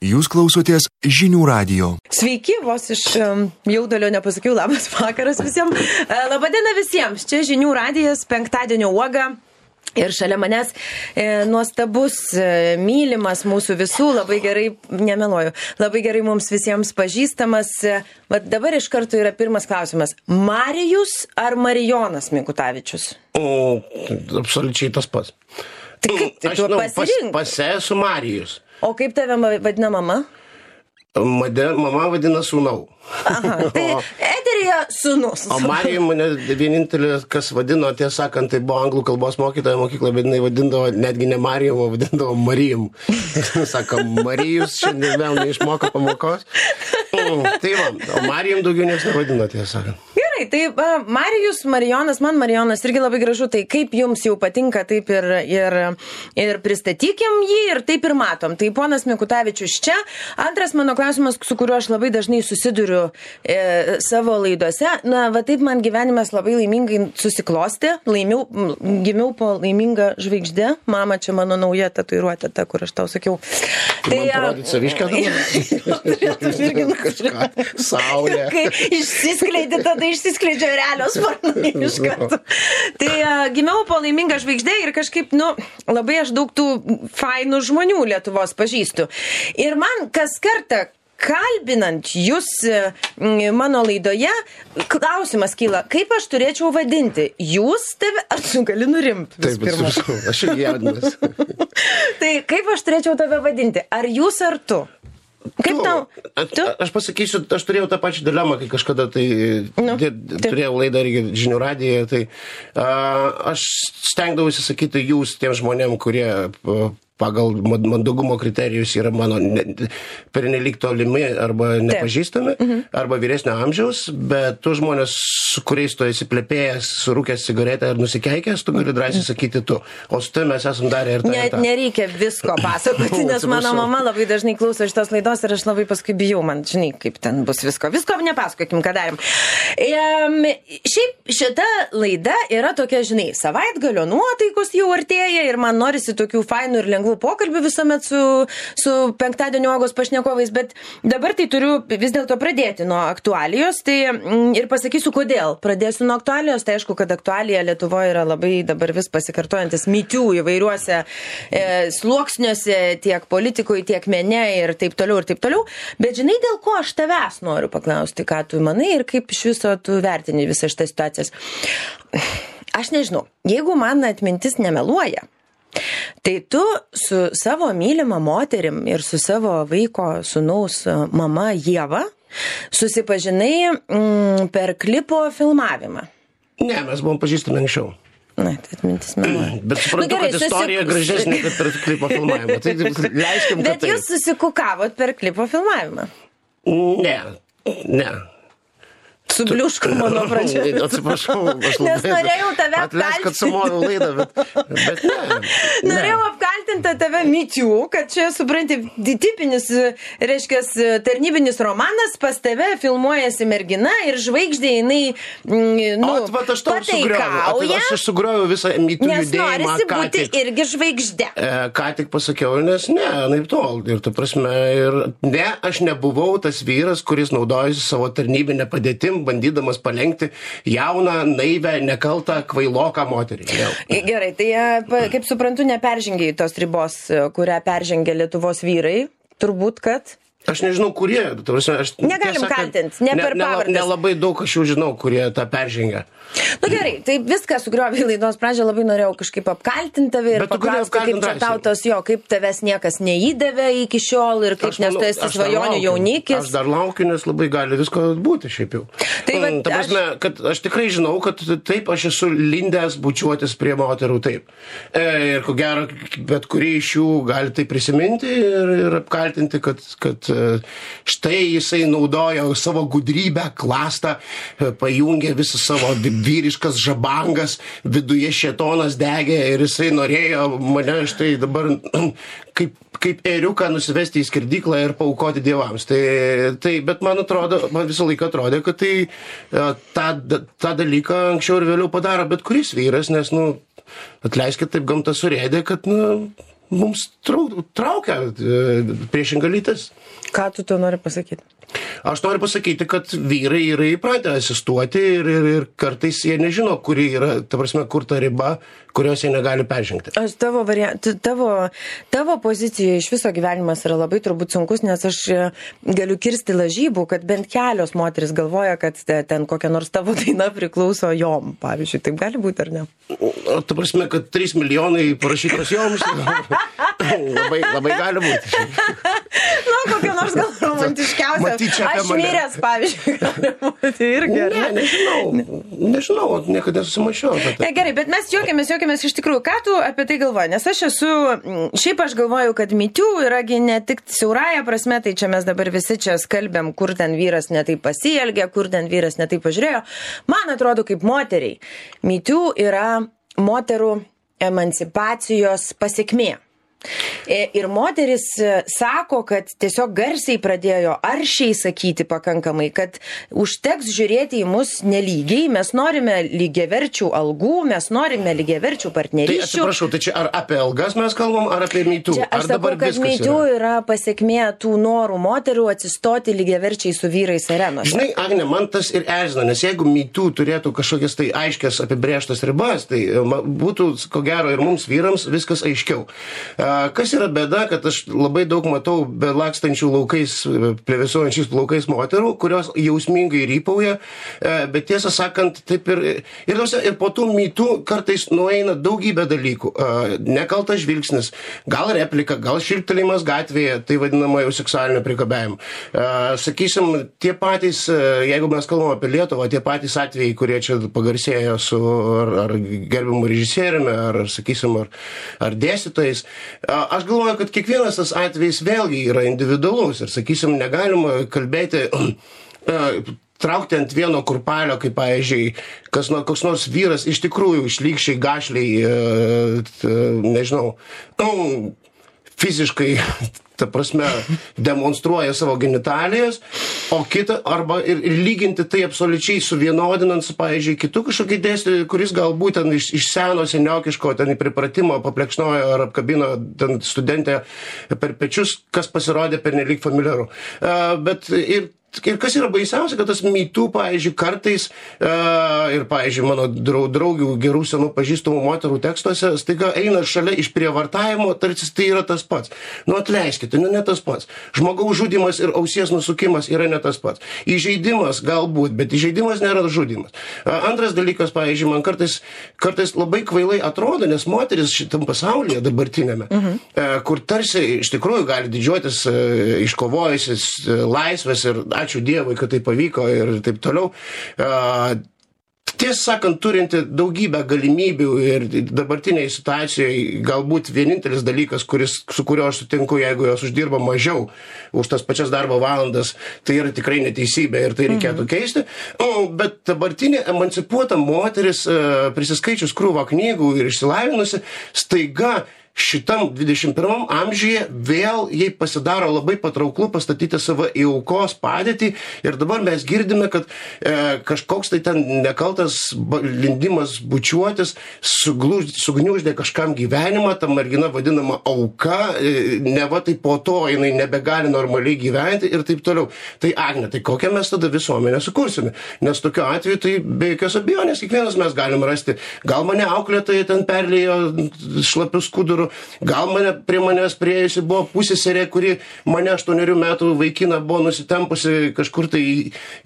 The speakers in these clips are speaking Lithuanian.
Jūs klausotės Žinių radijo. Sveiki, vos iš jaudulio nepasakiau, labas vakaras visiems. Labadiena visiems, čia Žinių radijas, penktadienio uoga. Ir šalia manęs nuostabus, mylimas mūsų visų, labai gerai, nemeluoju, labai gerai mums visiems pažįstamas. Bet dabar iš karto yra pirmas klausimas. Marijus ar Marijonas Mikutavičius? Absoliučiai tas pats. Tai kaip tu pasirink? Esu Marijus. O kaip tave vadina mama? Mama vadina sūnau. Aha, tai eteryje sūnus. O Marijum mane vienintelė, kas vadino, tiesą sakant, tai buvo anglų kalbos mokytoja mokykla, bet jinai vadindavo netgi ne Marijum, o vadindavo Marijum. Sako, Marijus šiandien vėl neišmoko pamokos. Tai va, o Marijum daugiau niekas nevadino, tiesą sakant. Gerai, tai Marijus, Marijonas, man Marijonas irgi labai gražu, tai kaip jums jau patinka, taip ir pristatykim jį ir taip ir matom. Tai ponas Mikutavičius čia. Antras mano klausimas, su kuriuo aš labai dažnai susiduriu savo laidose. Na, va taip man gyvenimas labai laimingai susiklostė. Gimiau po laimingą žvaigždę. Mama, čia mano nauja tatuiruotė, ta, kur aš tau sakiau. Tai man parodyti saviškę dabar? Kažką, saulė. Kai išsiskleidė, tada išsiskleidžia realios sparnai iš karto. Tai gimiau po laimingą žvaigždę ir kažkaip, labai aš daug tų fainų žmonių Lietuvos pažįstu. Ir man kas kartą kalbinant jūs mano laidoje, klausimas kyla, kaip aš turėčiau vadinti? Jūs tave, ar tu gali nurimti? Taip, aš jau jaudinas. Tai kaip aš turėčiau tave vadinti? Ar jūs, ar tu? Kaip tau? Aš pasakysiu, aš turėjau tą pačią dilemą, kai kažkada turėjau laidą Žinių radijoje, tai aš stengdavausi sakyti jūs tiem žmonėm, kurie pagal mandagumo kriterijus yra mano pernelyg tolimi arba nepažįstami, arba vyresnio amžiaus, bet tu žmonės, su kuriais tu esi plepėjęs, surūkęs cigaretę ar nusikeikęs, tu gali drąsiai sakyti tu. O su tai mes esam darę ir tą. Nereikia visko pasakoti, nes mano mama labai dažnai klauso šitos laidos ir aš labai paskui bijau, man žinai, kaip ten bus visko. Visko nepasakokim, ką darėm. Šiaip šita laida yra tokia, žinai, savaitgalio nuotaikos jau artėja ir man norisi tokių fainų ir lengvų pokalbių visuomet su penktadienio uogos pašnekovais, bet dabar tai turiu vis dėlto pradėti nuo aktualijos, tai ir pasakysiu kodėl. Pradėsiu nuo aktualijos, tai aišku, kad aktualija Lietuvoje yra labai dabar vis pasikartojantis mytių įvairiuose sluoksniuose, tiek politikui, tiek mene ir taip toliau, bet žinai, dėl ko aš tavęs noriu paklausti, ką tu manai ir kaip iš viso tu vertini visą šitą situacijas. Aš nežinau, jeigu man atmintis nemeluoja, tai tu su savo mylima moterim ir su savo vaiko sūnaus mama Ieva susipažinai per klipo filmavimą. Ne, mes buvom pažįstami anksčiau. Na, tai atmintis meluoja. Bet suprantu, kad istorija gražesnė, kad per klipo filmavimą. Tai leiskim, kad bet jūs susikukavot per klipo filmavimą? Ne. Subliuško mano pradžioje. Atsiprašau, aš labai... Nes norėjau tave apkaltinti. Atleisk, kad sumoviau laidą, bet ne. Norėjau apkaltinti tave mytių, kad čia, supranti, tipinis, reiškia, tarnybinis romanas, pas tave filmuojasi mergina ir žvaigždė jinai, Vat aš tau sugriovau. Aš sugriovau visą mytių judėjimą. Nes norisi būti irgi žvaigždė. Ką tik pasakiau, nes naip tol. Ir ta prasme, aš nebuvau tas vyras, kuris naudojasi savo tarnybinę padėtim, bandydamas palenkti jauną, naivę, nekaltą, kvailoką moterį. Gerai, tai kaip suprantu, neperžengiai tos ribos, kurią peržengia Lietuvos vyrai, turbūt, kad... Aš nežinau, kurie. Negalim kaltinti, ne per pavardes. Nelabai daug aš jau žinau, kurie tą peržengia. Gerai, tai viską sugriovė laidos pradžią, labai norėjau kažkaip apkaltinti tave ir paklausti, kaip čia tautos kaip tavęs niekas neįdavė iki šiol ir kaip nes tu esi svajonių jaunikis. Aš dar laukiu, nes labai gali visko būti šiaip jau. Ta prasme, kad aš tikrai žinau, kad taip aš esu lindęs bučiuotis prie moterų, taip. Ir ko gero, bet kurį iš jų gali tai prisiminti ir apkaltinti, kad štai jisai naudojo savo gudrybę, klastą, pajungė visą savo vyriškas žabangas, viduje šėtonas degė ir jisai norėjo mane štai dabar kaip ėriuką nusivesti į skirdyklą ir paaukoti dievams. Bet man visą laiką atrodė, kad tą dalyką anksčiau ir vėliau padaro bet kuris vyras, nes, atleiskit, taip gamta surėdė, kad, mums traukia priešinga lytis. Ką tu to nori pasakyti? Aš noriu pasakyti, kad vyrai yra įpratę asistuoti ir kartais jie nežino, kuri yra, ta prasme, kur ta riba, kurios jie negali peržengti. Aš tavo pozicijoje iš viso gyvenimas yra labai turbūt sunkus, nes aš galiu kirsti lažybų, kad bent kelios moteris galvoja, kad ten kokia nors tavo daina priklauso jom, pavyzdžiui. Taip gali būti, ar ne? Ta prasme, kad 3 milijonai parašytos joms, labai gali būti. Nu, kokia nors gal romantiškiausia. Aš miręs, pavyzdžiui, gali būti irgi, ar ne? Nežinau, niekada nesusimašiau. Gerai, bet mes juokiamės iš tikrųjų. Ką tu apie tai galvoji? Nes šiaip aš galvoju, kad Me Too yragi ne tik siaurąja prasme, tai čia mes dabar visi čia skalbėm, kur ten vyras netaip pasielgė, kur ten vyras netaip pažiūrėjo. Man atrodo, kaip moteriai, Me Too yra moterų emancipacijos pasekmė. Ir moteris sako, kad tiesiog garsiai pradėjo aršiai sakyti pakankamai, kad užteks žiūrėti į mus nelygiai, mes norime lygiaverčių algų, mes norime lygiaverčių partnerysčių. Tai atsiprašau, tai čia ar apie algas mes kalbam, ar apie Me Too? Čia aš sakau, kad Me Too yra pasekmė tų norų moterų atsistoti lygiaverčiai su vyrais arenose. Žinai, Agne, man tas ir erzina, nes jeigu Me Too turėtų kažkokias tai aiškias apibrėžtas ribas, tai būtų, ko gero, ir mums vyrams viskas aiškiau. Kas yra bėda, kad aš labai daug matau belakstančių laukais, plevėsuojančiais plaukais moterų, kurios jausmingai rypauja, bet tiesą sakant, taip ir po tų Me Too kartais nueina daugybė dalykų. Nekaltas žvilgsnis, gal replika, gal šilptelėjimas gatvėje, tai vadinama jau seksualinio priekabiavimo. Sakysim, tie patys, jeigu mes kalbame apie Lietuvą, tie patys atvejai, kurie čia pagarsėjo su ar gerbiamu režisieriumi, ar, sakysim, ar dėstytojais. Aš galvoju, kad kiekvienas tas atvejis vėlgi yra individualus ir, sakysim, negalima kalbėti, traukti ant vieno kurpalio, kaip, pavyzdžiui, koks nors vyras iš tikrųjų šlykščiai, gašliai, nežinau, fiziškai, ta prasme, demonstruoja savo genitalijas, o kitą, arba ir lyginti tai absoliučiai suvienodinant su, pavyzdžiui, kitu kažkokį dėstytoją, kuris galbūt ten iš seno seniokiško ten į pripratimo paplekšnojo ar apkabino ten studentę per pečius, kas pasirodė pernelyg familiaru. Bet ir kas yra baisiausia, kad tas Me Too, pavyzdžiui, kartais ir, pavyzdžiui, mano draugių gerų senų pažįstamų moterų tekstuose staiga eina šalia išprievartavimo, tarsi tai yra tas pats. Nu, atleiskite, ne tas pats. Žmogaus žudymas ir ausies nusukimas yra ne tas pats. Įžeidimas galbūt, bet įžeidimas nėra žudymas. Antras dalykas, pavyzdžiui, man kartais labai kvailai atrodo, nes moteris šitam pasaulyje dabartinėme, kur tarsi iš tikrųjų gali didžiuotis iškovojusis laisvės ir ačiū Dievui, kad tai pavyko ir taip toliau. Tiesą sakant, turinti daugybę galimybių ir dabartiniai situacijoje galbūt vienintelis dalykas, su kuriuo aš sutinku, jeigu jos uždirba mažiau už tas pačias darbo valandas, tai yra tikrai neteisybė ir tai reikėtų keisti. Bet dabartinė emancipuota moteris, prisiskaičius krūvą knygų ir išsilavinusi, staiga šitam 21 amžiuje vėl jai pasidaro labai patrauklu pastatyti save į aukos padėtį ir dabar mes girdime, kad kažkoks tai ten nekaltas lindimas bučiuotis sugniuždė kažkam gyvenimą, ta mergina vadinama auka, neva tai po to jinai nebegali normaliai gyventi ir taip toliau. Tai Agne, tai kokią mes tada visuomenę sukursime? Nes tokiu atveju tai be jokios abejonės kiekvienas mes galim rasti. Gal mane auklėtoja ten perlėjo šlapių skudurų, gal prie manęs priėjusi buvo pusseserė, kuri mane 8 metų vaikiną buvo nusitempusi kažkur tai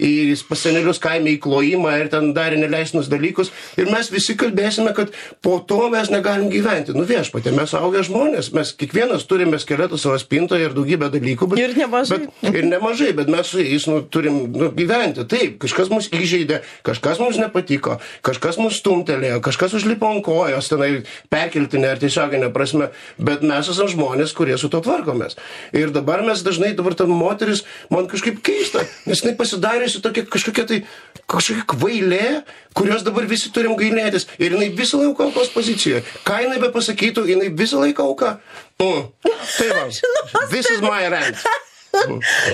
į pasenelius kaime į klojimą ir ten darė neleistinus dalykus. Ir mes visi kalbėsime, kad po to mes negalim gyventi. Nu viešpatie, mes augę žmonės, mes kiekvienas turime skeletų savo spintoje ir daugybę dalykų. Ir nemažai, bet mes su jais turim gyventi. Taip, kažkas mus įžeidė, kažkas mums nepatiko, kažkas mus stumtelėjo, kažkas užlipo ant kojos, tenai perkeltinė ar tiesioginė prasme. Bet mes esame žmonės, kurie su to tvarkomės. Ir dabar mes dažnai, ta moteris, man kažkaip keista, nes jinai pasidariusi tokia kažkokia kvailė, kurios dabar visi turim gailėtis. Ir jinai visą laiką aukos pozicijoje. Ką jinai be pasakytų, jinai visą laiką auka. Tai va, this is my rant.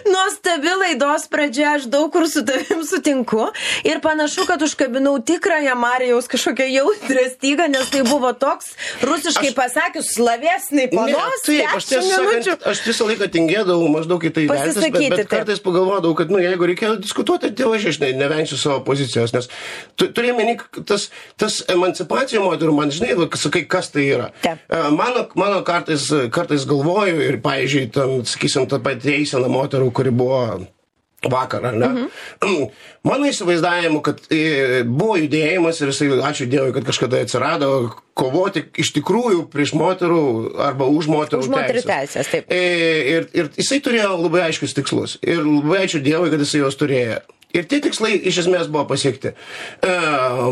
Nuostabi laidos pradžia, aš daug kur su tavim sutinku ir panašu, kad užkabinau tikrąją Marijaus kažkokią jautrę stygą, nes tai buvo toks, rusiškai pasakius, slavesnai panos. Taip, aš visą laiką tingėdavau maždaug į tai vertis, bet kartais pagalvodavau, kad jeigu reikėjo diskutuoti, tai aš nevengsiu savo pozicijos, nes turėjome tas emancipacija moterų, man žinai, sakai, kas tai yra. Mano kartais galvoju ir, pavyzdžiui, sakysim, tą patį eiseną moterų, kuri buvo vakar, ar ne? Mano įsivaizdavimu, kad buvo judėjimas ir jisai, ačiū Dievui, kad kažkada atsirado, kovoti iš tikrųjų prieš moterų arba už moterų teisės. Taip. Ir jisai turėjo labai aiškius tikslus. Ir labai ačiū Dievui, kad jisai juos turėjo. Ir tie tikslai iš esmės buvo pasiekti.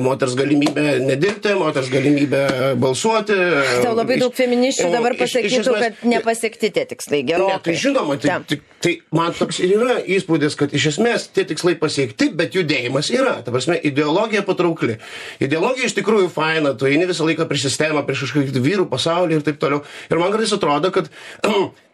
Moters galimybė nedirbti, moters galimybė balsuoti. Tau labai daug feministių dabar pasakytų, kad nepasiekti tie tikslai gerokai. Tai žinoma, tai man toks ir yra įspūdis, kad iš esmės tie tikslai pasiekti, bet judėjimas yra. Ta prasme, ideologija patraukli. Ideologija iš tikrųjų faina, tu eini visą laiką prieš sistemą, prieš kažkokį vyrų pasaulį ir taip toliau. Ir man kartais atrodo, kad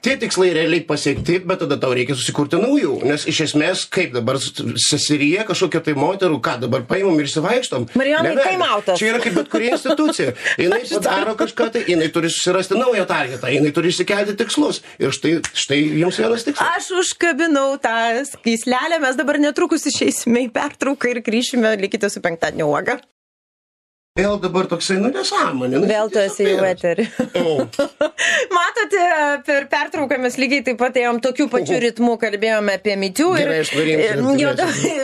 tie tikslai realiai pasiekti, bet tada tau reikia susikurti naujų. Nes iš esmės, kaip dabar seserija kažkokia tai moterų, ką dabar paimam ir įsivaikštom. Marijonai, taimautas. Čia yra kaip bet kuri institucija. Jinai padaro kažką tai, jinai turi susirasti naują targetą, jinai turi išsikelti tikslus. Ir štai jums vienas tikslas. Aš užkabinau tą skyslelę, mes dabar netrukus išeisime į pertrauką ir grįšime, likite su penktadienio uoga. Vėl dabar toksai, nesąmonė. Vėl tu esi jau eterį. Matote, per pertrauką mes lygiai taip pat ėjom tokiu pačiu ritmu, kalbėjome apie mitų.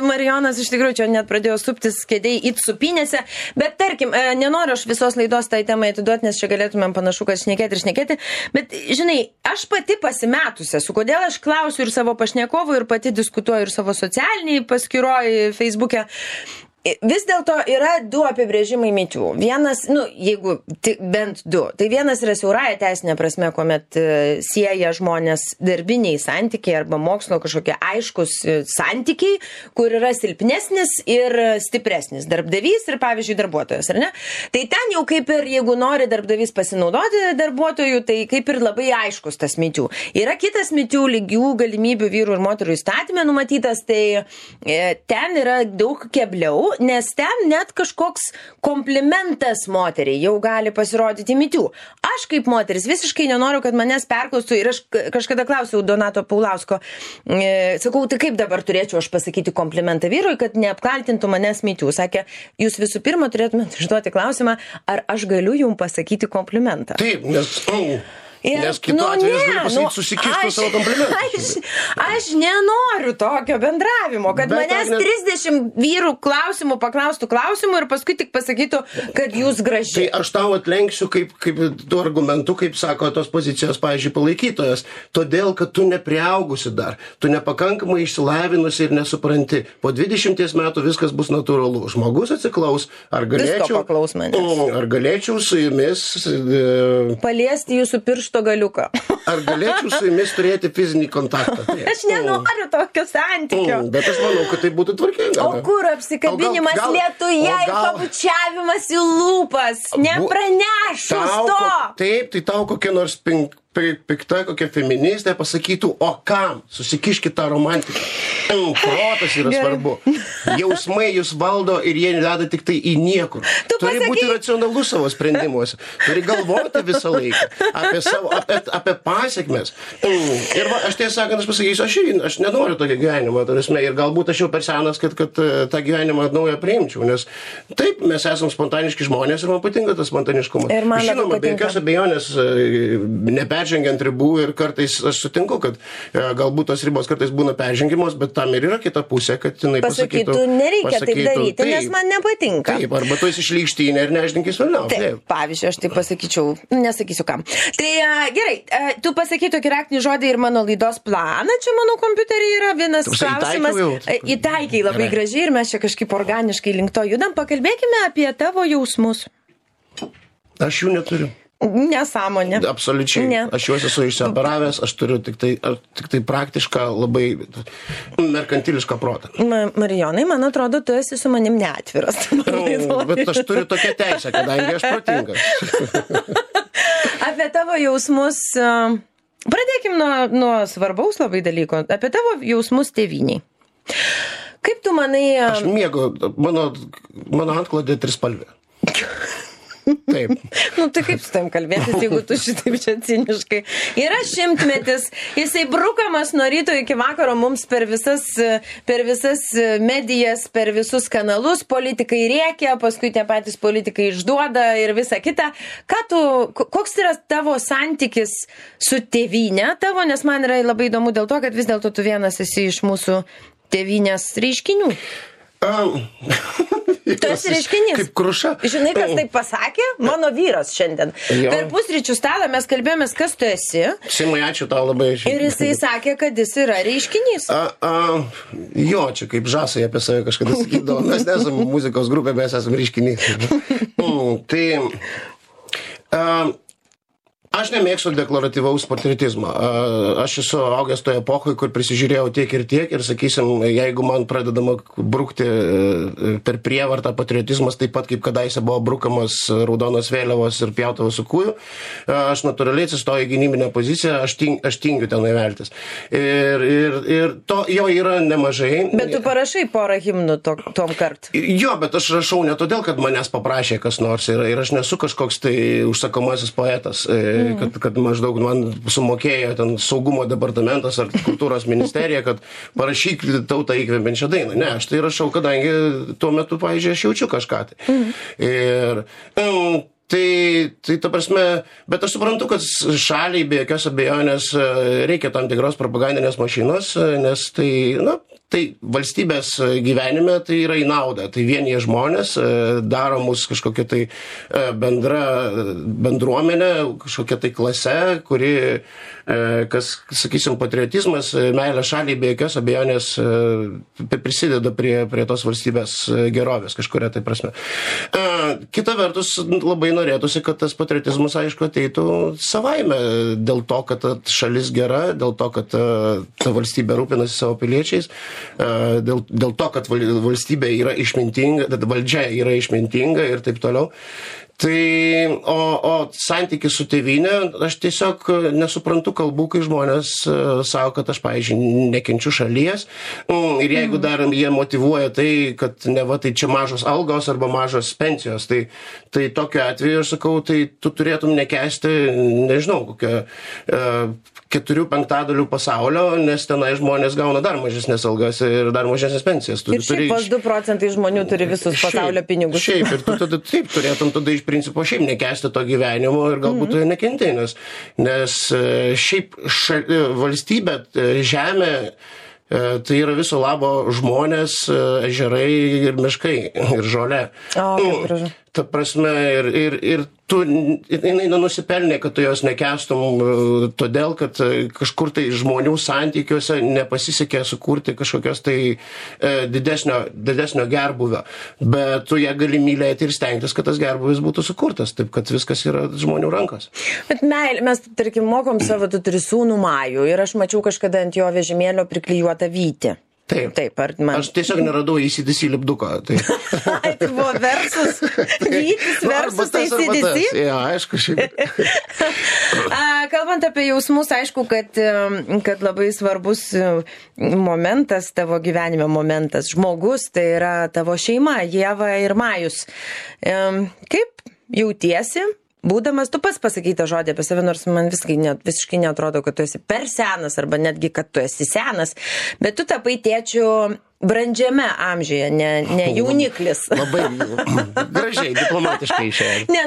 Marijonas iš tikrųjų čia net pradėjo suptis kėdėjai it supinėse. Bet tarkim, nenoriu aš visos laidos tai temai atiduoti, nes čia galėtumėm panašu, kad šnekėti. Bet, žinai, aš pati pasimetusi esu, kodėl aš klausiu ir savo pašnekovų, ir pati diskutuoju ir savo socialiniai paskyroje Facebook'e. Vis dėlto yra du apibrėžimai mitų. Vienas, jeigu bent du. Tai vienas yra siaurąja teisinė prasme, kuomet sieja žmonės darbiniai santykiai arba mokslo kažkokie aiškus santykiai, kur yra silpnesnis ir stipresnis darbdavys ir, pavyzdžiui, darbuotojas, ar ne? Tai ten jau kaip ir, jeigu nori darbdavys pasinaudoti darbuotojų, tai kaip ir labai aiškus tas mitų. Yra kitas mitų lygių galimybių vyrų ir moterų įstatymė numatytas, tai ten yra daug kebliau, nes ten net kažkoks komplimentas moteriai jau gali pasirodyti mitų. Aš kaip moteris visiškai nenoriu, kad manęs perklaustų ir aš kažkada klausiau Donato Paulausko, sakau, tai kaip dabar turėčiau aš pasakyti komplimentą vyrui, kad neapkaltintų manęs mitų. Sakė, jūs visų pirma turėtumėte užduoti klausimą, ar aš galiu jums pasakyti komplimentą. Taip, nes kitu atveju aš galiu pasakyti, susikištų savo komplimentą. Aš nenoriu tokio bendravimo, kad manęs 30 vyrų paklaustų klausimų ir paskui tik pasakytų, kad jūs graži. Tai aš tau atlenksiu kaip tu argumentu, kaip sako tos pozicijos, pavyzdžiui, palaikytojas, todėl, kad tu nepriaugusi dar, tu nepakankamai išsilavinusi ir nesupranti. Po 20 metų viskas bus natūralu. Žmogus atsiklaus, ar galėčiau su jumis paliesti jūsų piršto galiuką. Ar galėčiau su jumis turėti fizinį kontaktą? Aš nenoriu tokio santykio. Bet aš manau, kad tai būtų tvarkinga. O kur apsikabinimas lietuje ir pabučiavimas į lūpas? Nepranešus to! Taip, tai tau kokia nors pikta, kokia feministė pasakytų, o kam? Susikiškit tą romantiką. Protas yra svarbu. Jausmai jūs valdo ir jie veda tik tai į niekur. Turi būti racionalus savo sprendimuose. Turi galvoti visą laiką apie pasiekmes. Ir aš tiesą sakant, aš pasakysiu, aš nenoriu tokio gyvenimo, ir galbūt aš jau per senas, kad tą gyvenimą naują priimčiau, nes taip, mes esam spontaniški žmonės ir man patinka tas spontaniškumas. Žinoma, be jokios abejonės neperžengiant ribų ir kartais aš sutinku, kad galbūt tos ribos kartais būna peržengimos, bet tam ir yra kita pusė, kad jinai pasakytų, nereikia taip daryti, nes man nepatinka. Taip, arba tu esi šlykštynė ir neždinkis vėliau. Taip, pavyzdžiui, aš tai pasakyčiau, nesakysiu kam. Tai gerai, tu pasakai tokį raktinį žodį ir mano laidos planą, čia mano kompiuterį yra vienas klausimas. Įtaikiai labai gražiai ir mes čia kažkaip organiškai link to judam. Pakalbėkime apie tavo jausmus. Aš jų neturiu. Nesąmonė. Absoliučiai. Ne. Aš juos esu išsioperavęs, aš turiu tik tai praktišką, labai merkantilišką protą. Marijonai, man atrodo, tu esi su manim neatviras. Bet aš turiu tokią teisę, kadangi aš protingas. Apie tavo jausmus Pradėkim nuo svarbaus labai dalyko, apie tavo jausmus tėvyniai. Kaip tu manai... Aš mėgau, mano antklodė trispalvė. Taip. Tai kaip su tam kalbėtis, jeigu tu šitaip čia ciniškai. Yra 100-metis, jisai brukamas nuo ryto iki vakaro mums per visas medijas, per visus kanalus, politikai rėkia, paskui tie patys politikai išduoda ir visa kita. Koks yra tavo santykis su tėvynė tavo, nes man yra labai įdomu dėl to, kad vis dėlto tu vienas esi iš mūsų tėvynės reiškinių. Tu esi reiškinys. Kaip Kruša. Žinai, kas taip pasakė? Mano vyras šiandien. Jo. Per pusryčių stalą mes kalbėjomės, kas tu esi. Simai, ačiū tau labai. Ir jisai sakė, kad jis yra reiškinys. Jo, čia kaip Žasai apie save kažkada sakydavo. Mes nesam muzikos grupė, mes esam reiškinys. Aš nemėgstu deklaratyvaus patriotizmo. Aš esu augęs toje epochoje, kur prisižiūrėjau tiek ir, sakysim, jeigu man pradedama brukti per prievartą patriotizmas, taip pat kaip kadaise buvo brukamas raudonos vėliavos ir pjautavos su kūju, aš natūraliai atsistoju į gynybinę poziciją, aš tingiu ten įveltis. Ir to jo yra nemažai. Bet tu parašai porą himnų tom kart. Jo, bet aš rašau ne todėl, kad manęs paprašė kas nors ir aš nesu kažkoks tai užsakomasis poetas. Kad maždaug man sumokėjo ten saugumo departamentas ar kultūros ministerija, kad parašyk tautą įkvepiančią dainą. Ne, aš tai rašau, kadangi tuo metu, pavyzdžiui, aš jaučiu kažką tai. Ir tai ta prasme, bet aš suprantu, kad šaliai be jokios abejonės reikia tam tikros propagandinės mašinos, nes tai valstybės gyvenime tai yra į naudą. Tai vienyje žmonės daro mus kažkokia tai bendruomenė, kažkokia tai klase, kuri, sakysim, patriotizmas, meilė šaliai be jokios abejonės prisideda prie tos valstybės gerovės kažkuria tai prasme. Kita vertus, labai norėtųsi, kad tas patriotizmas, aišku, ateitų savaime dėl to, kad šalis gera, dėl to, kad ta valstybė rūpinasi savo piliečiais, dėl to, kad valstybė yra išmintinga, valdžia yra išmintinga ir taip toliau. O santykis su tėvynė, aš tiesiog nesuprantu kalbų, kai žmonės savo, kad aš, pavyzdžiui, nekenčiu šalies. Ir jeigu dar jie motyvuoja tai, kad neva tai čia mažos algos arba mažos pensijos, tai tokiu atveju aš sakau, tai tu turėtum nekęsti, nežinau, kokią 4/5 pasaulio, nes tenai žmonės gauna dar mažesnės algas ir dar mažesnės pensijas. Ir šiaip pas 2% žmonių turi visus pasaulio pinigus. Šiaip, ir tu taip turėtum tada iš principo šiaip nekęsti to gyvenimo ir galbūt tu nekentei, nes šiaip valstybė, žemė, tai yra viso labo žmonės, ežerai ir miškai ir žolė. Ta prasme, ir tu, jinai nenusipelnė, kad tu jos nekęstum, todėl, kad kažkur tai žmonių santykiuose nepasisekė sukurti kažkokios tai didesnio gerbuvio. Bet tu ją gali mylėti ir stengtis, kad tas gerbuvis būtų sukurtas, taip kad viskas yra žmonių rankos. Bet mes, tarkim, mokom savo, tu turi sūnų Majų ir aš mačiau kažkada ant jo vežimėlio priklijuotą vytį. Taip, aš tiesiog neradau ACDC lipduko. Tai buvo versus vytis, versus ACDC? Ja, aišku, šiaip. Kalbant apie jausmus, aišku, kad labai svarbus momentas, tavo gyvenime momentas, žmogus, tai yra tavo šeima, Ieva ir Majus. Kaip jautiesi? Būdamas, tu pats pasakyti žodį apie save, nors man visiškai neatrodo, kad tu esi per senas, arba netgi, kad tu esi senas, bet tu tapai tėčiu brandžiame amžiuje, ne jauniklis. Labai gražiai, diplomatiškai išėjo. Ne,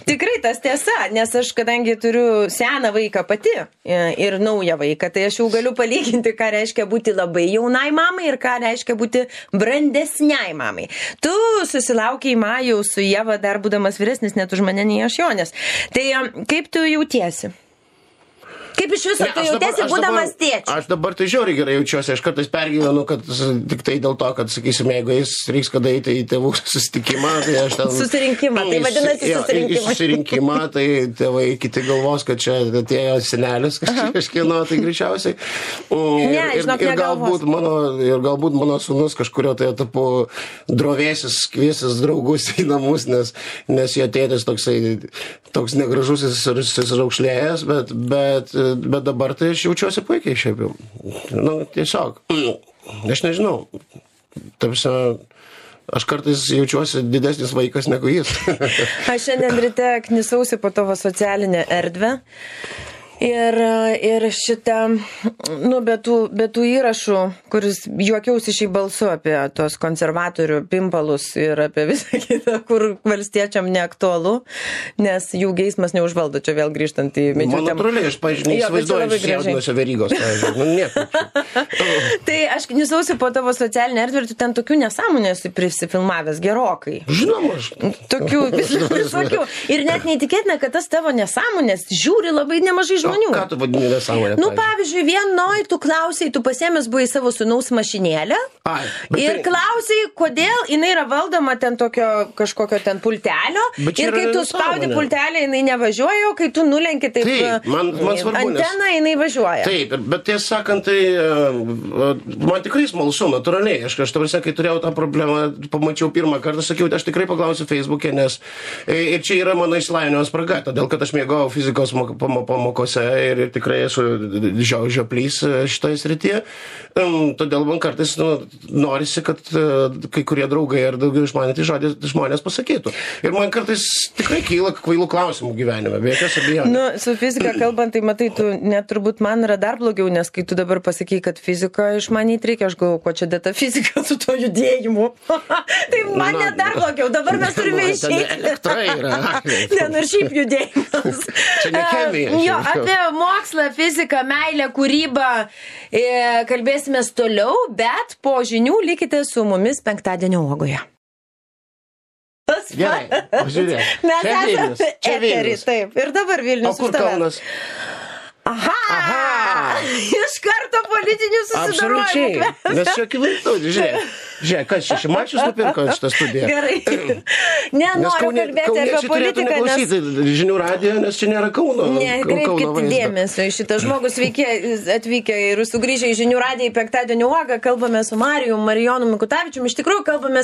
tikrai tas tiesa, nes aš, kadangi turiu seną vaiką pati ir naują vaiką, tai aš jau galiu palyginti, ką reiškia būti labai jaunai mamai ir ką reiškia būti brandesniai mamai. Tu susilaukiai Majaus su Ieva dar būdamas vyresnis, net už mane nei aš Jonės. Tai kaip tu jautiesi? Kaip iš viso tu jautiesi būdamas tėčiu? Aš dabar tai žiauriai gerai jaučiuosi, aš kartais pergyvenu, kad tik tai dėl to, kad, sakysim, jeigu jis reiks kada eiti į tėvų susitikimą, tai aš ten... Susirinkimą, tai vadinasi susirinkimą. Susirinkimą, tai tėvai kiti galvos, kad čia atėjo senelis kažkieno, tai greičiausiai. Ir galbūt mano sūnus kažkurio tai etapu drovėsis, kviesis draugus į namus, nes jo tėtis toks negražusis ir raukšlėjęs, bet dabar tai aš jaučiuosi puikiai šiaip jau. Tiesiog. Aš nežinau. Tarsi, aš kartais jaučiuosi didesnis vaikas negu jis. Aš šiandien ryte knisausi po tavo socialinę erdvę. Ir šitą, be tų įrašų, kuris juokiausi šiai balsu apie tos konservatorių pimpalus ir apie visą kitą, kur valstiečiam neaktualu, nes jų geismas neužvaldo, čia vėl grįžtant į medžių temą. Man natūraliai, aš, pavyzdžiui, neįsivaizduoju išjaudinuose Verygos, pavyzdžiui. Tai aš knisausi po tavo socialinę erdvę ir tu ten tokių nesąmonę esi prisifilmavęs gerokai. Žinoma, aš. Tokių visokių. Ir net neįtikėtina, kad tas tavo nesąmonės žiūri labai nemažai žmonių. Ką tu vadini nesąmonę? Pavyzdžiui, vienoj tu klausai, tu pasiėmęs buvai savo sūnaus mašinėlę ir klausai, kodėl jinai yra valdoma ten tokio kažkokio ten pultelio ir kai tu spaudi pultelį, jinai nevažiuoja, o kai tu nulenki taip anteną, jinai važiuoja. Taip, bet tiesą sakant, tai man tikrai smalsu, natūraliai. Aš tavrasi, kai turėjau tą problemą, pamačiau pirmą kartą, sakiau, aš tikrai paklausiu Facebook'e, nes ir čia yra mano išsilavinimo spraga, todėl kad aš mėgau fizikos pamokose ir tikrai esu žioplys šitoje srityje. Todėl man kartais norisi, kad kai kurie draugai ar daugiau išmanyti žmonės pasakytų. Ir man kartais tikrai kyla kvailų klausimų gyvenime, be jokios abejonės. Su fizika kalbant, tai matai, tu net turbūt man yra dar blogiau, nes kai tu dabar pasakai, kad fiziką išmanyti reikia, aš galvoju, ko čia dėta fizika su to judėjimu. Tai man net dar blogiau, dabar mes turime išeiti. Elektra yra. Ir šiaip judėjimas. Čia ne chemija. Apie mokslą, fiziką, meilę, kūrybą kalbėsime toliau, bet po žinių likite su mumis penktadienio uogoje. Gerai, pažiūrėk. Mes esame eterį, taip. Ir dabar Vilnius. O kur Kaunas? Aha! Iš karto politinių susidorojimų. Absoliučiai. Nes čia akivaizdu, žiūrėk, kas čia Šimašius nupirko šitą studiją. Gerai. Nenoriu kalbėti apie politiką, nes... žinių radijo, nes čia nėra Kauno. Nekreipkite dėmesio į šitą žmogų. Sveiki atvykę ir sugrįžę į žinių radiją į penktadienio uogą. Kalbame su Marijonu Mikutavičiumi. Iš tikrųjų, kalbame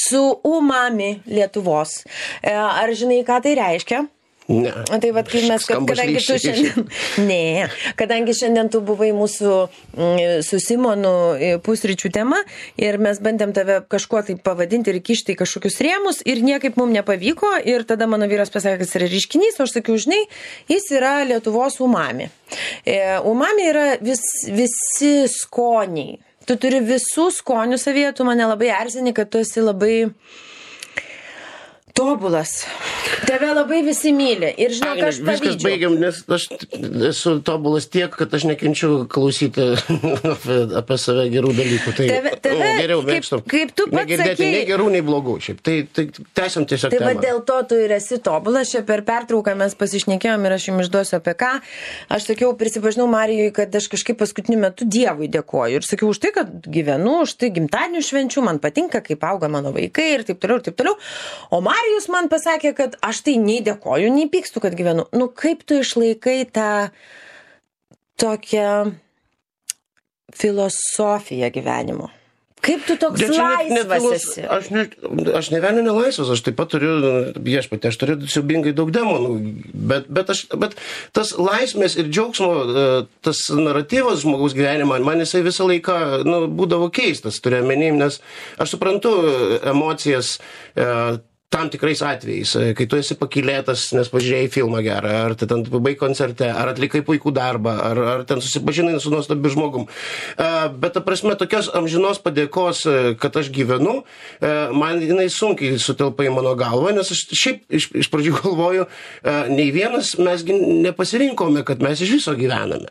su Umami Lietuvos. Ar žinai, ką tai reiškia? Ne. Tai vat, kai mes, kadangi tu šiandien... Ne, kadangi šiandien tu buvai mūsų su Simonu pusryčių tema ir mes bandėm tave kažkuo tai pavadinti ir kišti į kažkokius rėmus ir niekaip mums nepavyko ir tada mano vyras pasakė, kad jis yra ryškinys, o aš sakiau, žinai, jis yra Lietuvos umami. Umami yra visi skoniai. Tu turi visų skonių savyje, tu mane labai erzini, kad tu esi labai... tobulas. Tave labai visi myli. Ir žinok, aš pavydžiu. Viskas baigiam, nes aš esu tobulas tiek, kad aš nekenčiu klausyti apie save gerų dalykų. Tai geriau mėgstu. Kaip tu pats sakei. Nei gerų, nei blogų. Šiaip. Tai tęsiam tiesiog temą. Tai va dėl to tu ir esi tobulas. Čia per pertrauką mes pasišnekėjom ir aš jums išduosiu apie ką. Aš sakiau, prisipažinau Marijui, kad aš kažkaip paskutiniu metu Dievui dėkoju. Ir sakiau už tai, kad gyvenu, už tai gimtadienių švenčių, man patinka, kaip auga mano vaikai ir taip toliau, ir taip toliau. O Marijus man pasakė, kad aš tai nei dėkoju, nei pykstu, kad gyvenu. Nu, kaip tu išlaikai tą tokią filosofiją gyvenimo? Kaip tu toks laisvas esi? Aš ne vieną nelaisvas, aš taip pat turiu, viešpatį, aš turiu siaubingai daug demonų, bet tas laisvės ir džiaugsmo, tas naratyvas žmogaus gyvenimą, man jisai visą laiką būdavo keistas, turiu menim, nes aš suprantu emocijas, tam tikrais atvejais, kai tu esi pakylėtas, nes pažiūrėjai filmą gerą, ar ten pabai koncerte, ar atlikai puikų darbą, ar ten susipažinai su nuostabiu žmogum. Bet ta prasme, tokios amžinos padėkos, kad aš gyvenu, man jinai sunkiai sutelpa į mano galvą, nes aš šiaip iš pradžių galvoju, nei vienas mes nepasirinkome, kad mes iš viso gyvename.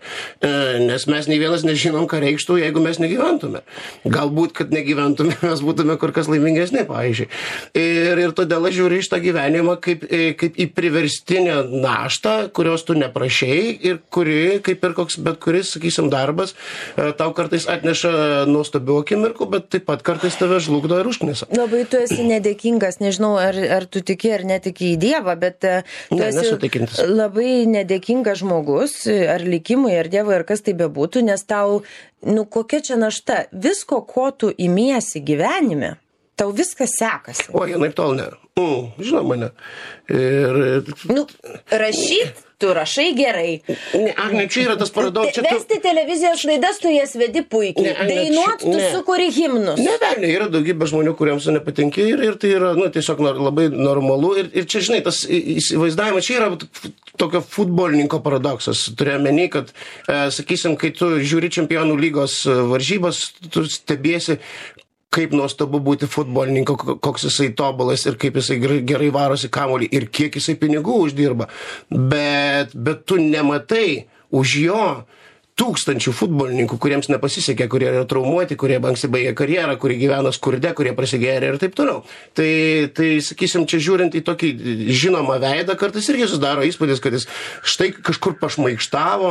Nes mes nei vienas nežinom, ką reikštų, jeigu mes negyventume. Galbūt, kad negyventume, mes būtume kur kas laimingesni, pavyzdžiui. Ir todėl aš žiūriu iš tą gyvenimą kaip į priverstinę naštą, kurios tu neprašei ir kuri, kaip ir koks bet kuris, sakysim, darbas, tau kartais atneša nuostabių akimirkų, bet taip pat kartais tave žlugdo ir užknisa. Labai tu esi nedėkingas, nežinau, ar tu tiki ar netiki į Dievą, bet tu esi labai nedėkingas žmogus, ar likimui, ar Dievui, ar kas tai bebūtų, nes tau, kokia čia našta, visko, ko tu imiesi gyvenime, tau viskas sekasi. O, naip tol ne. Žinoma, ne. Rašyt, tu rašai gerai. Agne, čia yra tas paradoksas. Vesti televizijos laidas, tu jas vedi puikiai. Dainuot, tu sukuri himnus. Ne, yra daugybė žmonių, kuriems tu nepatinki ir tai yra, tiesiog labai normalu. Ir čia, žinai, tas įsivaizdavimas, čia yra tokio futbolininko paradoksas. Turėjau meni, kad, sakysim, kai tu žiūri čempionų lygos varžybas, tu stebiesi, kaip nuostabu būti futbolininku, koks jisai tobulas ir kaip jisai gerai varosi kamuolį ir kiek jisai pinigų uždirba. Bet tu nematai už jo tūkstančių futbolininkų, kuriems nepasisekė, kurie yra traumuoti, kurie anksti baigė karjerą, kurie gyvena skurde, kurie prasigėrė ir taip toliau. Tai sakysim, čia žiūrint į tokį žinomą veidą, kartais irgi susidaro įspūdis, kad jis štai kažkur pašmaikštavo,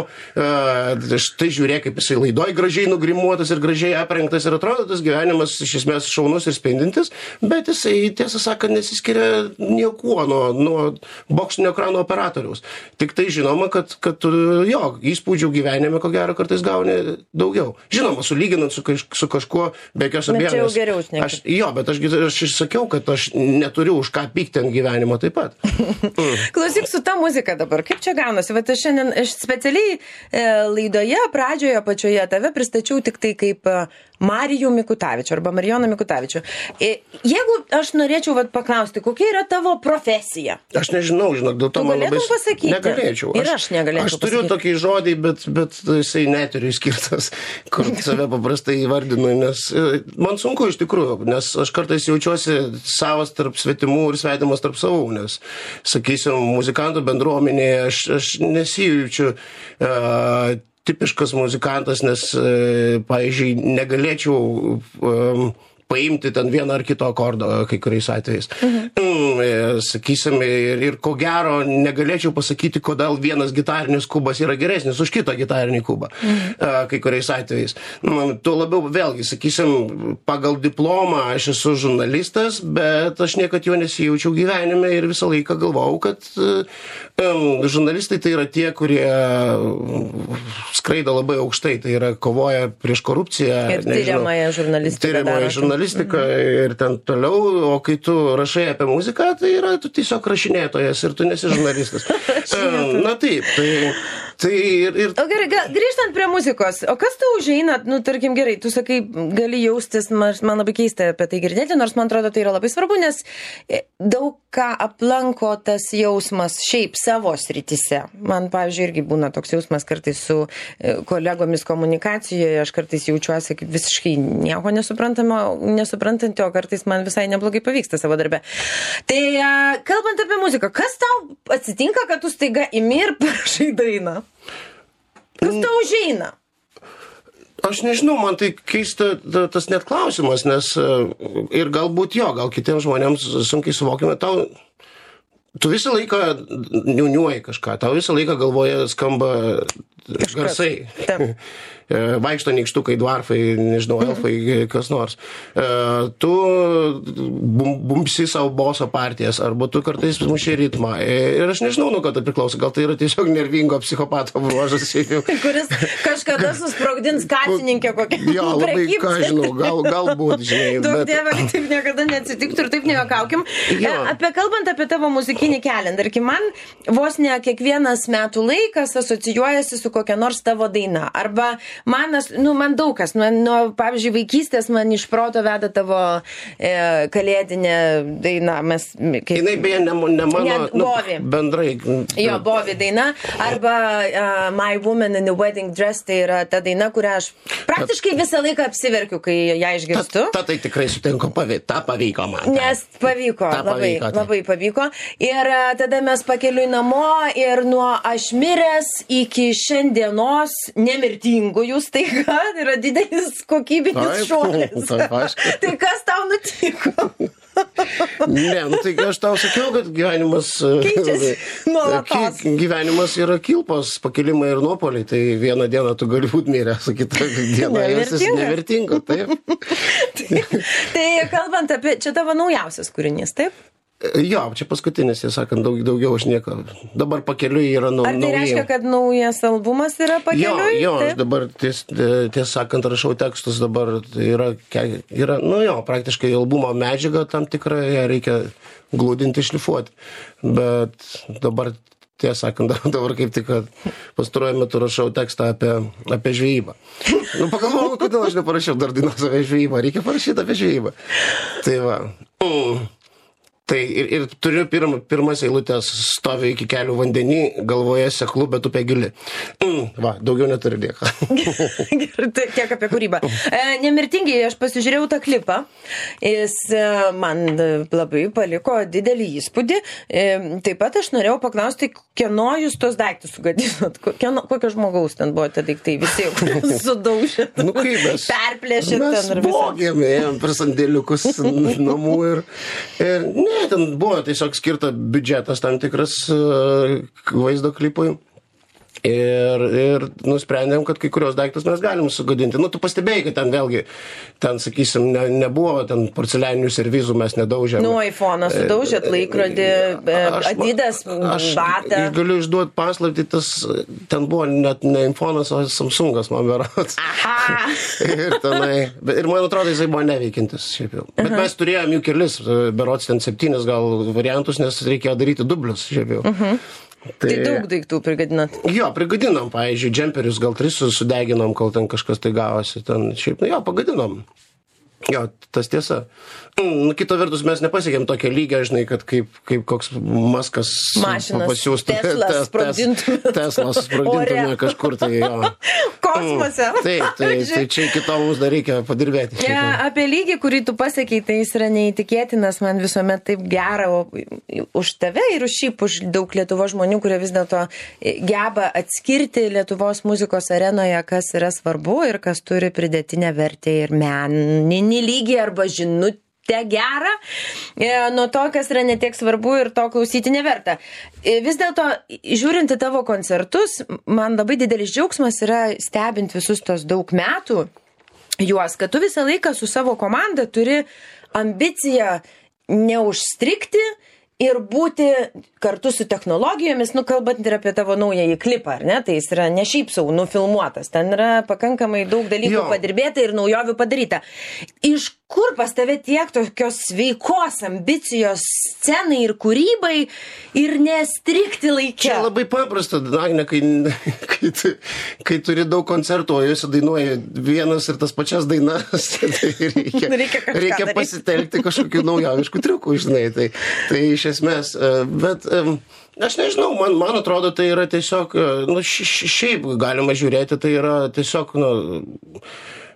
štai žiūrėk, kaip jisai laidoj gražiai nugrimuotas ir gražiai aprengtas ir atrodo tas gyvenimas iš esmės šaunus ir spindintis, bet jisai, tiesą sakant, nesiskiria niekuo nuo boksinio ekrano operatoriaus. Tik tai žinoma, kad jo, įspūdžių gyvenime gero kartais gauni daugiau. Žinoma, sulyginant su kažkuo, be jokios abejonės. Bet čia jau geriau šnekėt. Jo, bet aš sakiau, kad aš neturiu už ką pykti ant gyvenimo taip pat. Klausyk, su ta muzika dabar, kaip čia gaunasi? Vat aš specialiai laidoje, pradžioje, pačioje tave pristačiau tik tai kaip Marijų Mikutavičių arba Marijoną Mikutavičių. Jeigu aš norėčiau paklausti, kokia yra tavo profesija? Aš nežinau, dėl to man labai... pasakyti? Negalėčiau. Ir aš negalėčiau pasakyti. Aš turiu tokį žodį, bet jisai neturiu skirtas, kur save paprastai įvardinu, nes man sunku iš tikrųjų, nes aš kartais jaučiuosi savas tarp svetimų ir svetimas tarp savų, nes, sakysim, muzikantų bendruomenėje aš nesijaučiu tipiškas muzikantas, nes, pavyzdžiui, negalėčiau paimti ten vieną ar kito akordo kai kuriais atvejais. Sakysim, ir ko gero negalėčiau pasakyti, kodėl vienas gitarinis kubas yra geresnis už kitą gitarinį kubą kai kuriais atvejais. Tuo labiau, vėlgi, sakysim, pagal diplomą aš esu žurnalistas, bet aš niekad jo nesijaučiau gyvenime ir visą laiką galvojau, kad žurnalistai tai yra tie, kurie skraido labai aukštai, tai yra kovoja prieš korupciją. Ir tyriamąją žurnalistiką ir ten toliau, o kai tu rašai apie muziką, tai yra tu tiesiog rašinėtojas ir tu nesi žurnalistas. Na taip, tai ir... O gerai, grįžtant prie muzikos, o kas tau užeina, tarkim gerai, tu sakai, gali jaustis, man labai keista apie tai girdėti, nors man atrodo tai yra labai svarbu, nes daug ką aplanko tas jausmas šiaip savo srityse. Man, pavyzdžiui, irgi būna toks jausmas kartais su kolegomis komunikacijoje, aš kartais jaučiuosi kaip visiškai nieko nesuprantanti, o kartais man visai neblogai pavyksta savo darbe. Tai kalbant apie muziką, kas tau atsitinka, kad tu staiga imi ir parašai dainą? Kas tau užeina? Aš nežinau, man tai keista tas net klausimas, nes ir galbūt gal kitiems žmonėms sunkiai suvokime, tu visą laiką niuniuoji kažką, tau visą laiką galvoje skamba garsai. Vaikšto nykštukai, dvarfai, nežinau, elfai, kas nors. Tu bumpsi savo boso partijas, arba tu kartais muši ritmą. Ir aš nežinau, nuo ko tai priklauso. Gal tai yra tiesiog nervingo psichopato bruožas. Kuris kažkada susprogdins kasininkę kokią. Jo, labai, ką žinau, galbūt, žinai. Daug dievą, kad taip niekada neatsitiktų ir taip nejuokaukim. Kalbant apie tavo muzikinį kelią, tarkim, man vos ne kiekvienas metų laikas asocijuojasi su kokia nors tavo daina. Arba man daug kas, pavyzdžiui, vaikystės man iš proto veda tavo kalėdinė daina. Jinai beje ne mano, bendrai. Jo, Bovi daina. Arba My Woman in the Wedding Dress, tai yra ta daina, kurią aš praktiškai visą laiką apsiverkiu, kai ją išgirstu. Tai tikrai sutinku, ta pavyko man. Nes pavyko, labai pavyko. Ir tada mes pakeliui namo ir nuo aš miręs iki šiandienos nemirtingųjų staiga yra didelis kokybinis šuolis. Tai kas tau nutiko? Ne, nu tai aš tau sakiau, kad gyvenimas... Keičiasi nuolatos. Gyvenimas yra kilpos, pakilimai ir nuopoliai. Tai vieną dieną tu gali būti miręs, o kitą dieną esi nevertinga. Taip. Tai kalbant apie... Čia tavo naujausias kūrinys, taip? Jo, čia paskutinis, jie sakant, daugiau aš nieko. Dabar pakeliui yra Ar tai reiškia, kad naujas albumas yra pakeliui? Jo, aš dabar, tiesą sakant, rašau tekstus, dabar yra, nu jo, praktiškai albumo medžiaga tam tikrą, ją reikia glūdinti, šlifuoti. Bet dabar, tiesą sakant, dabar kaip tik, kad pastaruoju metu rašau tekstą apie žvejybą. Nu, pagalvojau, kodėl aš neparašiau dar dainos apie žvejybą, reikia parašyti apie žvejybą. Tai va. Tai ir turiu pirmas eilutės, stovi iki kelių vandenį, galvoje seklu, bet upė gili. Va, daugiau neturi nieko. Gerai, tiek apie kūrybą. Nemirtingai, aš pasižiūrėjau tą klipą. Jis man labai paliko didelį įspūdį. Taip pat aš norėjau paklausti, kieno jūs tos daiktus sugadinot? Kokio žmogaus ten buvo tie daiktai? Visi sudaužėt, nu, kaip mes? Perplėšėt ten. Mes vogėm, ėjom per sandėliukus namų ir ne, ten buvo tiesiog skirta biudžetas tam tikras vaizdo klipui. Ir nusprendėm, kad kai kurios daiktus mes galim sugadinti. Nu, tu pastebėjai, kad ten vėlgi, ten, sakysim, nebuvo ten porcelianinių servizų, mes nedaužėm. Nu, iPhone'ą sudaužėt, laikrodį, Adidas, batą. Aš galiu išduoti paslaptį, ten buvo net ne iPhone'as, o Samsungas, man berods. Aha! ir man atrodo, jisai buvo neveikintis. Šiaip jau. Bet mes turėjom jų kelis, berods ten 7 gal variantus, nes reikėjo daryti dublius. Šiaip jau. Tai daug daiktų prigadinat? Jo, prigadinom, pavyzdžiui, džemperius gal 3 sudeginom, kol ten kažkas tai gavosi. Ten šiaip, jo, pagadinom. Jo, tas tiesa. Kita vertus, mes nepasiekėm tokią lygą, žinai, kad kaip koks Maskas pasiūstų. Teslas sprogdintume kažkur, tai jo. Kosmose. Tai čia iki to mums dar reikia padirbėti. Apie lygį, kurį tu pasakei, tai jis yra neįtikėtinas, man visuomet taip gera už tave ir už daug Lietuvos žmonių, kurie vis dėlto geba atskirti Lietuvos muzikos arenoje, kas yra svarbu ir kas turi pridėtinę vertę ir meninį lygį arba žinutę gerą, nuo to, kas yra netiek svarbu ir to klausyti neverta. Vis dėlto, žiūrint į tavo koncertus, man labai didelis džiaugsmas yra stebint visus tos daug metų juos, kad tu visą laiką su savo komanda turi ambiciją neužstrigti ir būti kartu su technologijomis, kalbant ir apie tavo naująjį klipą, ar ne? Tai jis yra ne šiaip sau nufilmuotas, ten yra pakankamai daug dalykų padirbėta ir naujovių padaryta. Iš kur pas tave tiek tokios sveikos ambicijos scenai ir kūrybai ir nestrikti laikė? Čia labai paprasta, Agne, kai turi daug koncertų, o jūs dainuoji vienas ir tas pačias dainas, tai reikia pasitelkti kažkokių naujoviškų triukų, žinai, tai iš esmės, bet aš nežinau, man atrodo, tai yra tiesiog, šiaip galima žiūrėti, tai yra tiesiog,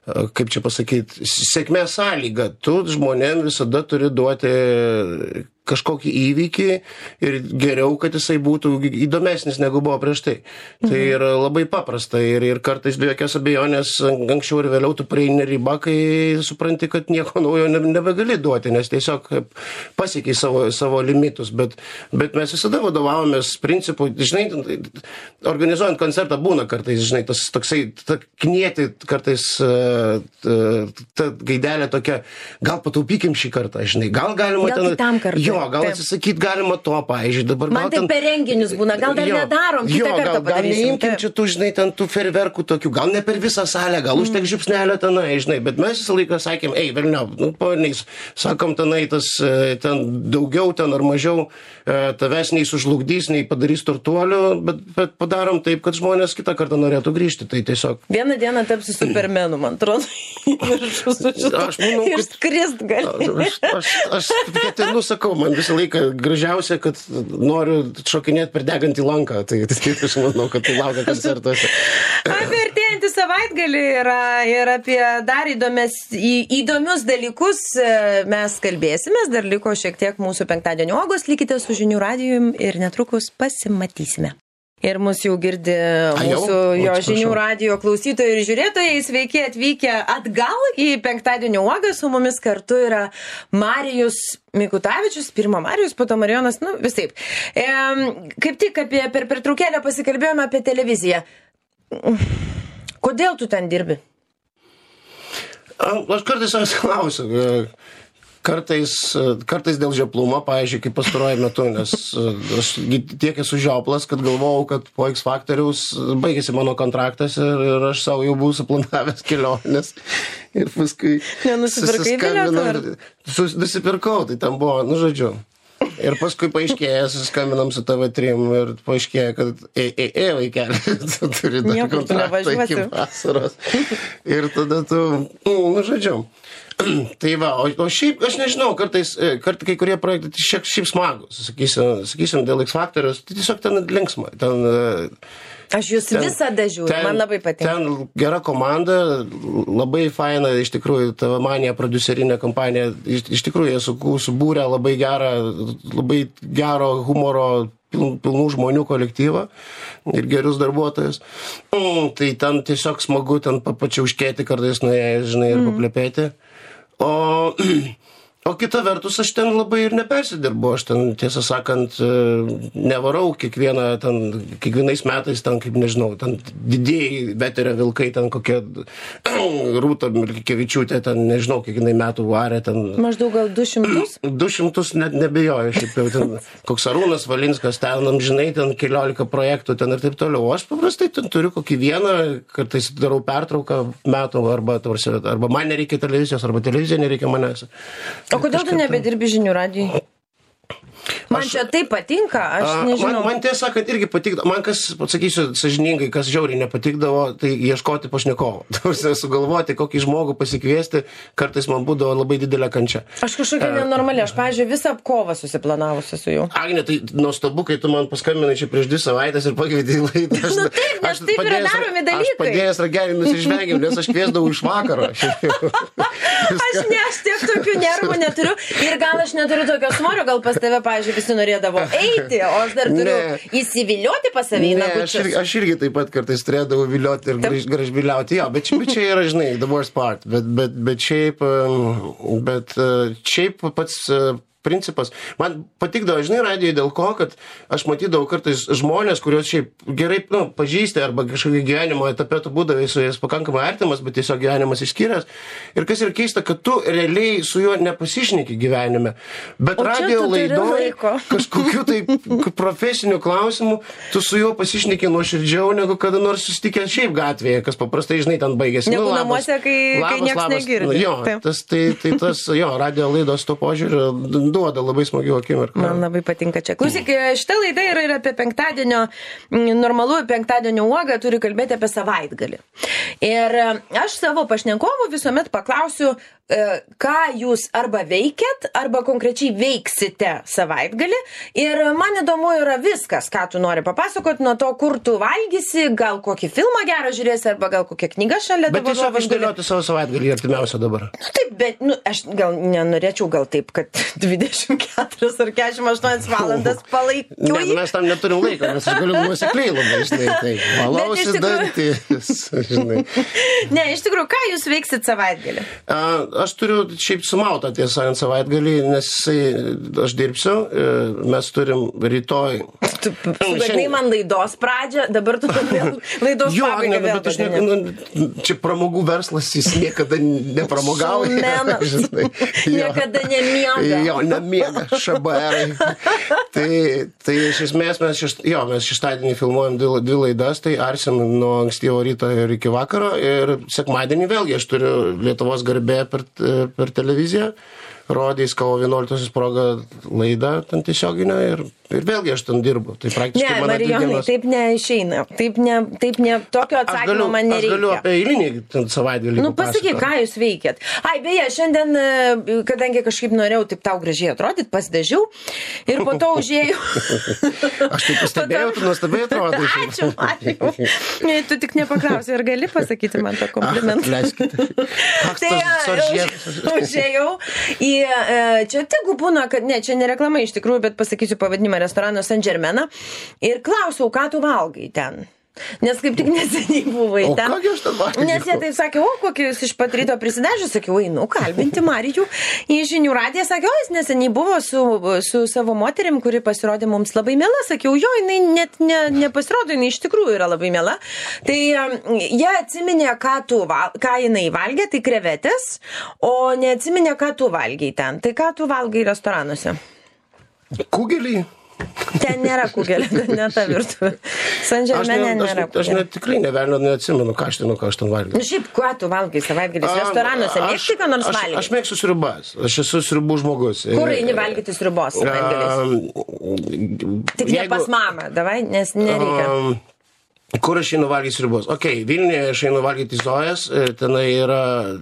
kaip čia pasakyti, sėkmės sąlyga. Tu žmonėm visada turi duoti kažkokį įvykį ir geriau, kad jisai būtų įdomesnis negu buvo prieš tai. Tai yra labai paprasta ir kartais be jokios abejonės anksčiau ir vėliau tu prieini ribą, kai supranti, kad nieko naujo nebegali duoti, nes tiesiog pasiekiai savo limitus, bet mes visada vadovavomės principu, žinai, organizuojant koncertą būna kartais, žinai, tas toksai, knieti kartais ta gaidelė tokia, gal pataupykim šį kartą, žinai, gal galima gal kitam kartui. Jo, gal atsisakyti galima to, pavyzdžiui, dabar man tai per renginius būna, gal dar nedarom, kitą kartą padarysim. Gal neimkim čia tų, žinai, ten tų ferverkų tokių, gal ne per visą salę, gal užtek žiupsnelio tenai, žinai, bet mes visą laiką sakėm, velniau, pavaniais, sakom tenai tas, ten daugiau, ten ar mažiau, tavęs nei sužlugdys, nei padarys turtuolių, bet padarom taip, kad žmonės kitą kartą norėtų grįžti, tai tiesiog. Vieną dieną tapsi supermenu, man atrodo, ir skrist gali. Aš ketinu, sakau, man visą laiką gražiausia, kad noriu šokinėti per degantį lanką. Tai aš manau, kad tai laukia koncertuose. Apie artėjantį savaitgalį ir apie dar įdomius dalykus mes kalbėsimės. Dar liko šiek tiek mūsų penktadienio uogos. Likite su Žinių radijum ir netrukus pasimatysime. Ir mus jau girdi mūsų jo žinių radijo klausytojai ir žiūrėtojai. Sveiki atvykę atgal į penktadienio uogą. Su mumis kartu yra Marijus Mikutavičius, pirma Marijus, po to Marijonas, visaip. Kaip tik per pertraukėlę pasikalbėjome apie televiziją. Kodėl tu ten dirbi? Aš kartais savęs klausiu. Kartais dėl žioplumo, pavyzdžiui, kaip pastaruoju metu, nes aš tiek esu žioplas, kad galvojau, kad po X Faktoriaus baigėsi mano kontraktas ir aš savo jau buvau suplanavęs kelionės. Ir paskui... Nenusipirkai bilietą? Nusipirkau, tai tam buvo, žodžiu. Ir paskui paaiškėjo, susiskambinam su TV3 ir paaiškėjo, kad vaikeli, tu turi dar kontraktą iki vasaros. Ir tada tu, žodžiu. Tai va, o šiaip, aš nežinau, kartais kai kurie projektai šiaip smagus, sakysim, dėl X Faktoriaus, tai tiesiog ten linksma. Aš jūs visada žiūriu, man labai patinka. Ten gera komanda, labai faina, iš tikrųjų, TV Manija prodiuserinė kompanija, iš tikrųjų, jie subūrė labai gero humoro, pilnų žmonių kolektyvą ir gerus darbuotojus. Tai ten tiesiog smagu ten pačiauškėti kartais nuėjęs, žinai, ir paplepėti. O kita vertus, aš ten labai ir nepersidirbu, aš ten, tiesą sakant, nevarau kiekvienais metais, ten, kaip nežinau, ten didieji veterio vilkai, ten kokia Rūta Milkevičiūtė, ten, nežinau, kiekvienai metų varė, ten... Maždaug gal 200? 200 net nebejoju, šiaip jau ten, koks Arūnas Valinskas, ten, žinai, ten 14 projektų, ten ir taip toliau. O aš paprastai ten turiu kokį vieną, kartais darau pertrauką metų, arba man nereikia televizijos, arba televizija nereikia manęs. O kodėl tu nebedirbi žinių radijui? Man čia tai patinka, aš nežinau. Man tiesą sakant irgi patikdavo, man kas, pasakysiu sąžiningai, kas žiauriai nepatikdavo, tai ieškoti pašnekovo. Sugalvoti, kokį žmogų pasikviesti, kartais man būdavo labai didelė kančia. Aš kažkokia nenormali, aš, pavyzdžiui, visą kovą susiplanavusi su jau. Agne, tai nuostabu, kai tu man paskambinai čia prieš 2 savaitės ir pakvietei į laidą. Taip, nes taip yra daromi dalykai. Aš padėjęs ragelį nusižvengiau, nes aš kviesdavau iš vakaro. Aš tiek tokių nervų neturiu ir gal aš neturiu tokio svorio, gal pas tave, pavyzdžiui, visi norėdavo eiti, o aš dar turiu įsivilioti pas savį į nagučius. Aš irgi taip pat kartais turėdavau vilioti ir gražbiliauti, jo, bet čia yra, žinai, the worst part, bet šiaip pats principas. Man patikdavo, žinai, radijai dėl ko, kad aš matydavau kartais žmonės, kuriuos šiaip gerai, pažįsti arba kažkokį gyvenimo etape tu būdavai su jais pakankamai artimas, bet tiesiog gyvenimas išskyręs. Ir kas yra keista, kad tu realiai su juo nepasišneki gyvenime. Bet radijo laidoje kažkokiu tai profesiniu klausimu tu su juo pasišneki nuoširdžiau, negu kada nors susitikęs šiaip gatvėje, kas paprastai, žinai, ten baigėsi. Negu namuose, kai nieks negirdi. Jo, tas radijo laidos to požiūrio duoda labai smagių akimirkų. Man labai patinka čia. Klausyk, šitą laidą yra ir apie normalų penktadienio uogą, turi kalbėti apie savaitgalį. Ir aš savo pašnekovų visuomet paklausiu, ką jūs arba veikiat, arba konkrečiai veiksite savaitgalį. Ir man įdomu yra viskas, ką tu nori papasakoti, nuo to, kur tu valgysi, gal kokį filmą gerą žiūrėsi, arba gal kokią knygą šalia dabar. Bet tiesiog išdėlioti savo savaitgalį artimiausią dabar. Taip, bet aš gal nenorėčiau taip, kad 24 ar 48 valandas palaikiu. Ne, mes tam neturim laiko, nes aš galiu nuosekliai labai, žinai, tai valausi dantis, žinai. Ne, iš tikrųjų, ką jūs veiksit savaitgalį? Aš turiu šiaip sumautą tiesą ant savaitgalį, nes aš dirbsiu, mes turim rytoj. Tu sugadinai man laidos pradžią, dabar tu vėl laidos pabaigą vėl padėni. Čia pramogų verslas, jis niekada nepramogauja. Niekada nemiega. Jo, nemiega, šabarai. Tai iš esmės mes šeštadienį filmuojam 2 laidas, tai arsim nuo ankstyvo ryto ir iki vakaro, ir sekmadienį vėlgi aš turiu Lietuvos garbė per televiziją, rodys kovo 11 proga laidą ten tiesioginę ir vėlgi aš ten dirbu. Tai praktiškai ne, Marijonai, taip neišeina. Taip ne, tokio atsakymo man nereikia. Aš galiu apie eilinį savaitgalį. Pasakyk, ką jūs veikiat. Beje, šiandien, kadangi kažkaip norėjau taip tau gražiai atrodyti, pasidažiau ir po to užėjau. Aš taip pastebėjau, tu nuostabiai atrodai. Ačiū, Marijau. Tu tik nepaklausai, ar gali pasakyti man tą komplimentą. Leiskite. Tai užėjau į čia tegu būna, kad ne, čia ne reklama iš tikrųjų, bet pasakysiu pavadinimą restorano Saint Germain ir klausiau, ką tu valgai ten. Nes kaip tik neseniai buvai ten. O ką aš ten valgiau? Nes jie taip sakė, o kokį jūs iš pat ryto prisidažė, sakiau, einu kalbinti Marijų į Žinių radiją, sakė, o jis neseniai buvo su savo moterim, kuri pasirodė mums labai miela, sakiau, jo, jinai net nepasirodo, jinai iš tikrųjų yra labai miela. Tai jie atsiminė, ką jinai valgė, tai krevetės, o neatsiminė, ką tu valgiai ten. Tai ką tu valgai restoranuose? Kugelį? Ten nėra kugelio, ne ta virtuvė. Saint Germaine nėra kugelio. Aš net tikrai neatsimenu, ką aš ten valgiau. Šiaip, ką tu valgai savaitgalis restoranuose? Mėgsti ką nors valgyti? Aš mėgstu sriubas. Aš esu sriubų žmogus. Kur eini valgyti sriubos savaitgalis? Tik ne pas mamą, davai, nes nereikia. Kur aš einu valgyti sriubos? Vilniuje aš einu valgyti Zojas, tenai yra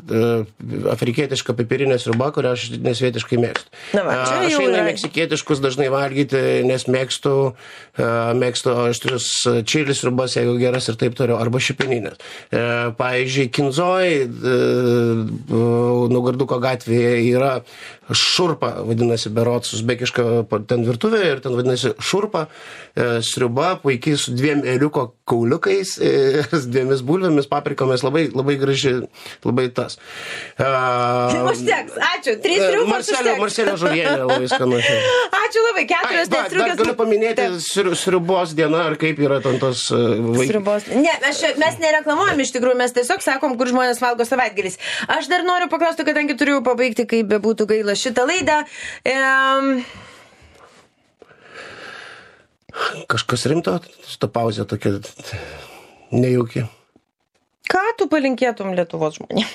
afrikietiška piperinė sriuba, kurią aš nesvietiškai mėgstu. Aš einu meksikietiškus dažnai valgyti, nes mėgstu aštrius čilis sriubas, jeigu geras ir taip toliau, arba šipeninės. Pavyzdžiui, Kinzoj, Naugarduko gatvėje yra šurpa, vadinasi, berods, uzbekiška ten virtuvė ir ten vadinasi šurpa, sriuba, puikiai su 2 ėriuko kauliukais, 2 bulvėmis, paprikomis, labai, labai graži, labai tas. Užteks, ačiū, 3 sriubos užteks. Marselio žuvienė labai skanu. Ačiū labai, 4 striukės. Galiu paminėti sriubos dieną, ar kaip yra ten tos sriubos. Ne, mes nereklamuojam iš tikrųjų, mes tiesiog sakom, kur žmonės valgo savaitgalis. Aš dar noriu paklausti, kadangi turiu pabaigti, kaip bebūtų gaila šitą laidą. Kažkas rimto, šitą pauzę tokia nejauki. Ką tu palinkėtum Lietuvos žmonėms?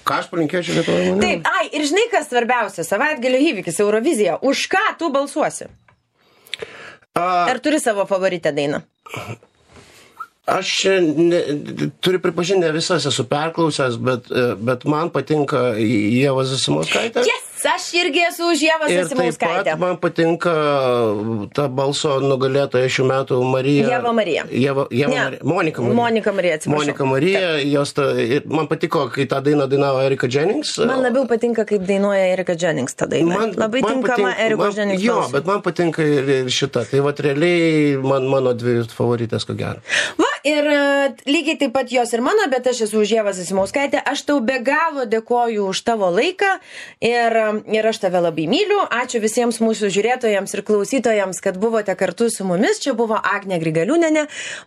Ką aš palinkėčiau Lietuvos žmonėms? Taip, ir žinai, kas svarbiausia, savaitgalio įvykis, Eurovizija. Už ką tu balsuosi? Ar turi savo favoritę dainą? Aš turiu pripažinti, ne visas esu perklausęs, bet man patinka Ieva Zasimauskaitė. Yes! Aš irgi esu už Ievą Zasimauskaitę. Ir taip pat man patinka ta balso nugalėtoja šių metų Marija. Ieva Marija. Monika Marija. Monika Marija, atsiprašau. Monika Marija. Man patiko, kai tą dainą dainavo Erika Jennings. Man labiau patinka, kaip dainuoja Erika Jennings tą dainą. Labai tinkama Erika Jennings balsui. Jo, bet man patinka ir šita. Tai vat realiai mano 2 favoritės, ko gero. Ir lygiai taip pat jos ir mano, bet aš esu už Ievą Zasimauskaitę. Aš tau be galo dėkoju už tavo laiką ir aš tave labai myliu. Ačiū visiems mūsų žiūrėtojams ir klausytojams, kad buvote kartu su mumis. Čia buvo Agnė Grigaliūnienė,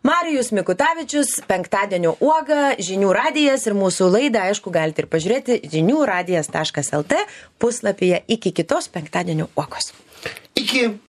Marijus Mikutavičius, Penktadienio uoga, Žinių radijas ir mūsų laidą, aišku, galite ir pažiūrėti žiniųradijas.lt puslapyje. Iki kitos Penktadienio uogos. Iki.